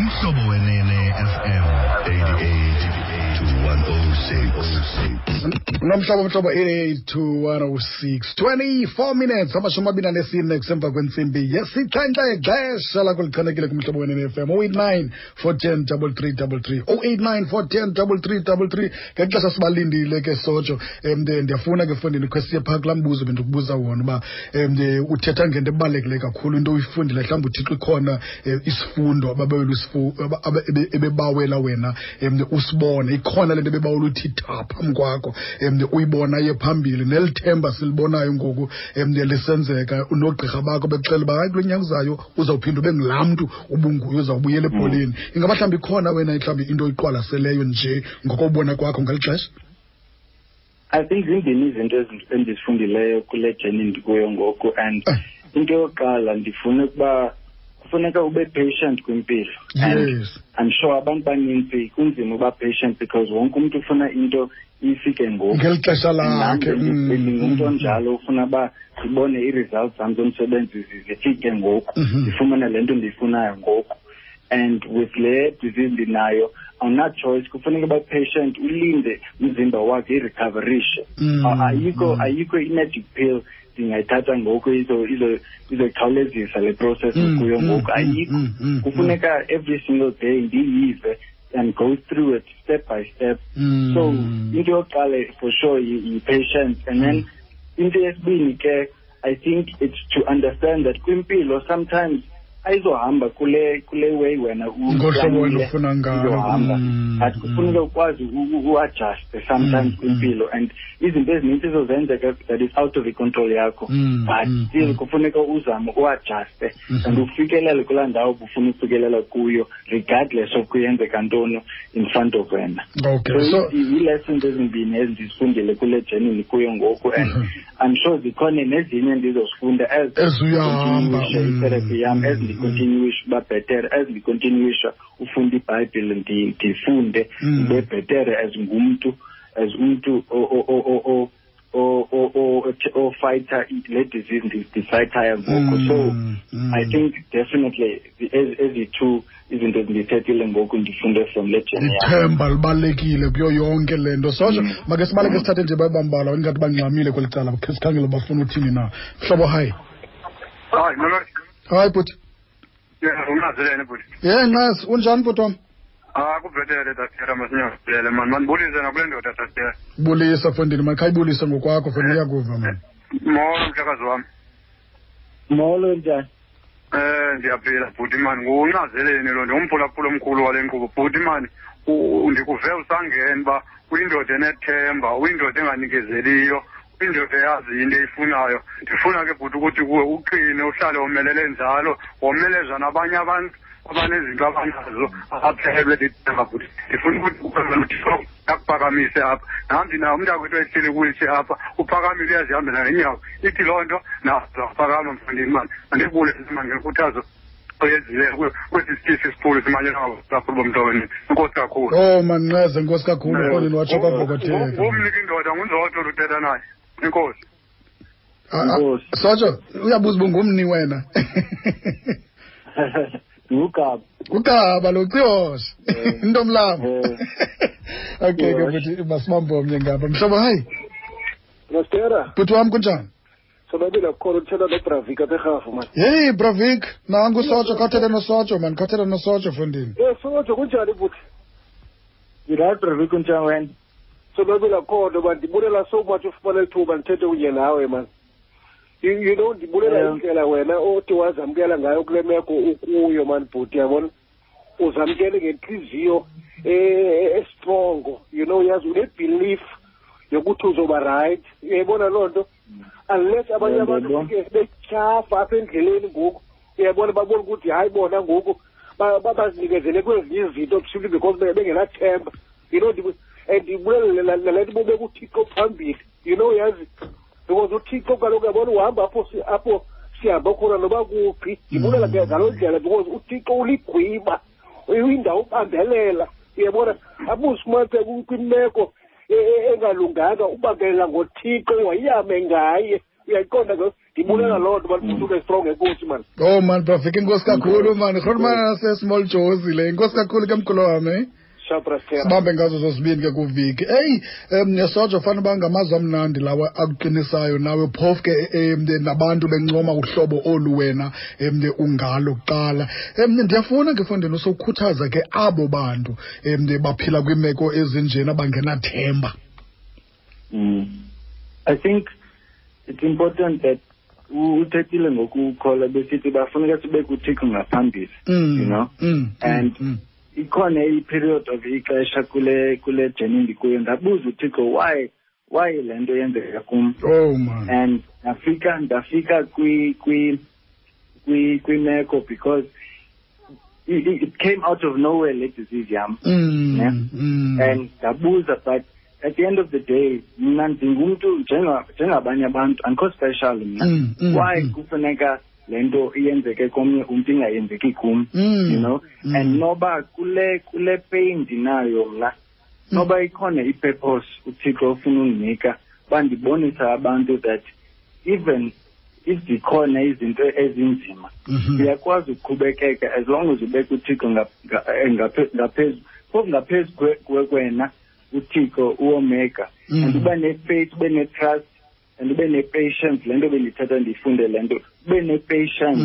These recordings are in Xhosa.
Umhlobo Wenene FM 88 to 106. Nomhlobo mhlobo 88 to 106 24 minutes 24 kusemva kwentsimbi yesixhenxe, xesha lakho lichanekile kumhlobo Wenene FM 089 410 3333, 089 410 3333. Ngexesha sibalindile ke, Sojo, ndiyafuna ke fondini khe siye phaa kulaa mbuzo bendikubuza wona uba uthetha ngento ebalulekileyo kakhulu, into uyifundile, mhlawumbi uThixo ikhona isifundo ebebawela wena usibone, ikhona le nto ebebawela uthi tha phambi kwakho, uyibona ye phambili neli themba silibonayo ngoku lisenzeka, noogqirha bakho bekuxelela uba hayi, kulo nyaka uzayo uzawuphinda ube ngulaa mntu ubunguye, uzawubuyela ebholeni. Ingaba mhlawumbi ikhona wena mhlawumbi into oyiqwalaseleyo nje ngokobona kwakho ngeli xesha? I think zimbini izinto endizifundileyo kule journey ndikuyo ngoku, and into yokuqala, ndifuna ukuba kufuneka ube patient kwimpilo. And I'm sure abantu baninzi kunzima uba patient because wonke umntu ufuna into ifike ngoku. Ngeli xesha lakhe. Ndingumntu onjalo, ufuna uba ndibone ii-results zam zomsebenzi zifike ngoku, ndifumane le nto ndiyifunayo ngoku. And with le disease ndinayo, awuna-choice, kufuneka uba patient, ulinde umzimba wakhe irecoverishe. Ayikho ayikho i-magic pill ndingayithatha ngoku izokhawulezisa le process kuyo ngoku, ayikho. Kufuneka every single day ndiyive and go through it step by step. So into yokuqala for sure yi-patience. And then into yesibini ke, I think it's to understand that kwimpilo sometimes ayizohamba kule way wena ngohlobo wena ufuna ngalo. Izohamba, but kufuneka ukwazi u-adjuste sometimes kwimpilo, and izinto ezininzi izozenzeka that is out of i-control yakho, but still kufuneka uzame u-adjuste and ufikelele kulaa ndawo ubufuna ukufikelela kuyo regardless of kuyenzeka ntoni in front of wena. So ii-lessons ezimbini ezindizifundile kule journey ndikuyo ngoku, and I'm sure zikhona nezinye endizozifunda as Ezuyahamba. I-therapy yam, as ndicontinuisha uba bhetere, as ndicontinuisha ufunda iBhayibhile, ndifunde ndibe bhetere as ngumntu, as umntu ofayitha le disease ndifayithayo ngoku. So I think definitely ezi two izinto ezindithethile ngoku ndifunde from le journey yam. Ithemba libalulekile kuyo yonke le nto, Sojo. Make sibaleke, sithathe nje babambalwa, ingathi bangxamile kweli cala, khe sikhangele bafuna uthini na. Mhlobo, hayi. Hayi, molo. Hayi bhuti. Yeah, ungazelene bhuti. Ye Nqasi, unjani bhuti wam? Ah, kubhetele tatera, masinyazele man. Mandibulise nakule ndoda, tatera. Bulisa fondini, makhayibulise ngokwakho fondini, iyakuva mani. Molo mhlekazi wam. Molo, njani? Ndiyaphila bhuti man, nguncazeleni lo, ndingumphulaphula omkhulu wale nkqubo bhuti man. Ndikuve usangena uba uyindoda enethemba, uyindoda enganikezeliyo, uyindoda eyazi into eyifunayo. Ndifuna ke bhuti ukuthi kuwe uqine, uhlale womelele njalo, womeleza nabanye abantu abanezinto abanazo abaphelelwe lithemba bhuti. Ndifuna ukuthi kuwe uThixo akuphakamise apha. Nam ndinawo umntakwethu ehleli kwi-wheelchair apha, uphakamile, uyazihambela ngeenyawo. Ithi loo nto nazo zaphakama mfondini mani. Mandibulise mani ngenkuthazo oyenzileyo kwesi sitishi sikhulu simanyelwa ngabaphulaphuli bomntu wenu. Enkosi kakhulu. Oh manqeze, enkosi kakhulu fondini, watsho kwavokotheka. Ngumniki indoda, nguNzoto luthetha naye. Enkosi. Enkosi. Sojo, uyabuza uba ungumni wena. Ngugaba. Ugaba lo Ciyoshe. Ntomlamo. Okay ke Ciyoshe. bhuti, masibambe omnye ngapha. Mhlobo, hayi. Mastera. Bhuti wam, kunjani? Sonwabile kukhona, uthetha noBravik apha eRhafu man. Hey Bravik, nangu Sojo, khathetha noSojo man, khathetha noSojo fondini. Sojo, kunjani bhuti? Ndirayithi Bravik, kunjani wena? Sonwabile kukhona man, ndibulela so much ufumana ithuba ndithethe kunye nawe man. You know ndibulela indlela wena othi wazamkela ngayo kule meko ukuyo man bhuti, yabona? Uzamkele ngentliziyo estrongo, yazi une-belief yokuthi uzoba right. Uyayibona loo nto? Unless abanye abantu Ndiyabona. ke betyhafa apha endleleni ngoku, uyayibona, babona ukuthi hayi bona ngoku bazinikezele kwezinye izinto simply because bengenathemba. And ndibulele nale nto bobeka uThixo phambili, yazi, because uThixo kaloku uyabona uhamba apho sihamba khona noba kuphi. Ndibulela ke ngaloo ndlela because uThixo uligwiba, uyindawo ubambelela, uyabona, abuzifumanise kwimeko engalunganga, ubambelela ngoThixo wayame ngaye, uyayiqonda ke. Ndibulela loo nto, mani, ube strong. Enkosi, mani. Oh man, brafika, inkosi kakhulu, man. Rhulumana nase-Small Jozi le. Inkosi kakhulu ke, mkhulu wam, eh? Sibambe ngazo zozibini ke kuviki. Eyi, Sojo, fanele uba ngamazwi amnandi lawa akuqinisayo nawe, phofu ke nabantu bencoma uhlobo olu wena ungalo kuqala. Ndiyafuna ke fondini usokhuthaza ke abo bantu baphila kwiimeko ezinjena bangenathemba. I think it's important that uthethile ngokukholwa, besithi bafuneka sibe kuThixo ngaphambili, you know, and ikhona i-period of ixesha kule journey ndikuyo, ndabuza uThixo why le nto yenzeka kum. Oh man. And ndafika kwimeko because it came out of nowhere le disease yam, ne? And ndabuza, but at the end of the day mna ndingumntu njengabanye abantu, andikho special mna. Why kufuneka le nto iyenzeke komnye umntu ingayenzeki kum, you know? And noba kule pain ndinayo mna, noba ikhona i-purpose uThixo ofuna undinika, bandibonisa abantu that even if zikhona izinto ezinzima, uyakwazi ukuqhubekeka as long as ubeka uThixo ngaphezu, phofu ngaphezu kwena uThixo uOmega, and uba ne-faith, ube ne-trust and ube ne-patience. Le nto bendithatha ndiyifunde le nto, ube ne-patience.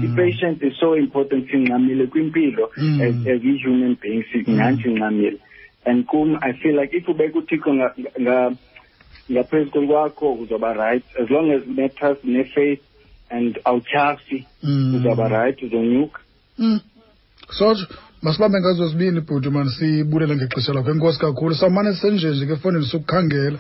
I-patience is so important. Singxamile kwimpilo as i-human beings, singathi singxamile, and kum I feel like if ubeka uThixo ngaphezu kwakho, uzoba right as long as une-trust, ne-faith and awutyhafi, uzawuba right, uzonyuka. Sojo, masibambe ngazo zibini, bhuti, mani, sibulele ngexesha lakho. Enkosi kakhulu. Sawumane senjenje ke efowunini sikukhangela,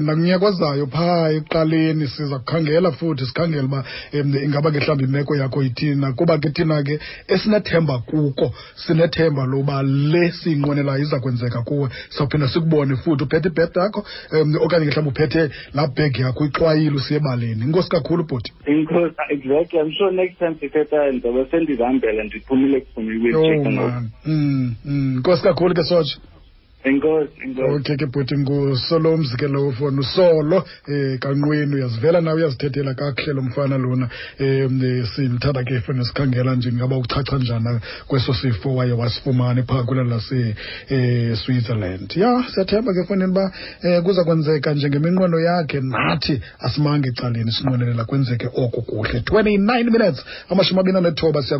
nakunyaka ozayo phaa ekuqaleni siza kukhangela futhi, sikhangele uba ingaba ke mhlawumbi imeko yakho ithini, kuba ke thina ke esinethemba kuko, sinethemba loba le siyinqwenelayo iza kwenzeka kuwe. Sawuphinda sikubone futhi uphethe ibhedi yakho, okanye ke mhlawumbi uphethe laa bhegi yakho ixwayile usiye ebaleni. Inkosi kakhulu, bhuti. Inkosi, exactly. I'm sure next time sithetha ndizobe sendizihambela, ndiphumile kufuna Oh man. Inkosi kakhulu ke, Soja. Enkosi, enkosi. Okay ke bhuti, nguSolomzi ke lowo fona, usolo kanqweni, uyazivela nawe, uyazithethela kakuhle lo mfana lona. Simthanda ke fona, sikhangela nje ngaba uchacha njani kweso sifo waye wasifumana phaa kwela lase Switzerland. Ya, siyathemba ke fonini uba kuza kwenzeka njengeminqweno yakhe, nathi asimange ecaleni, sinqwenelela kwenzeke oko kuhle. 29 minutes, 29 siya.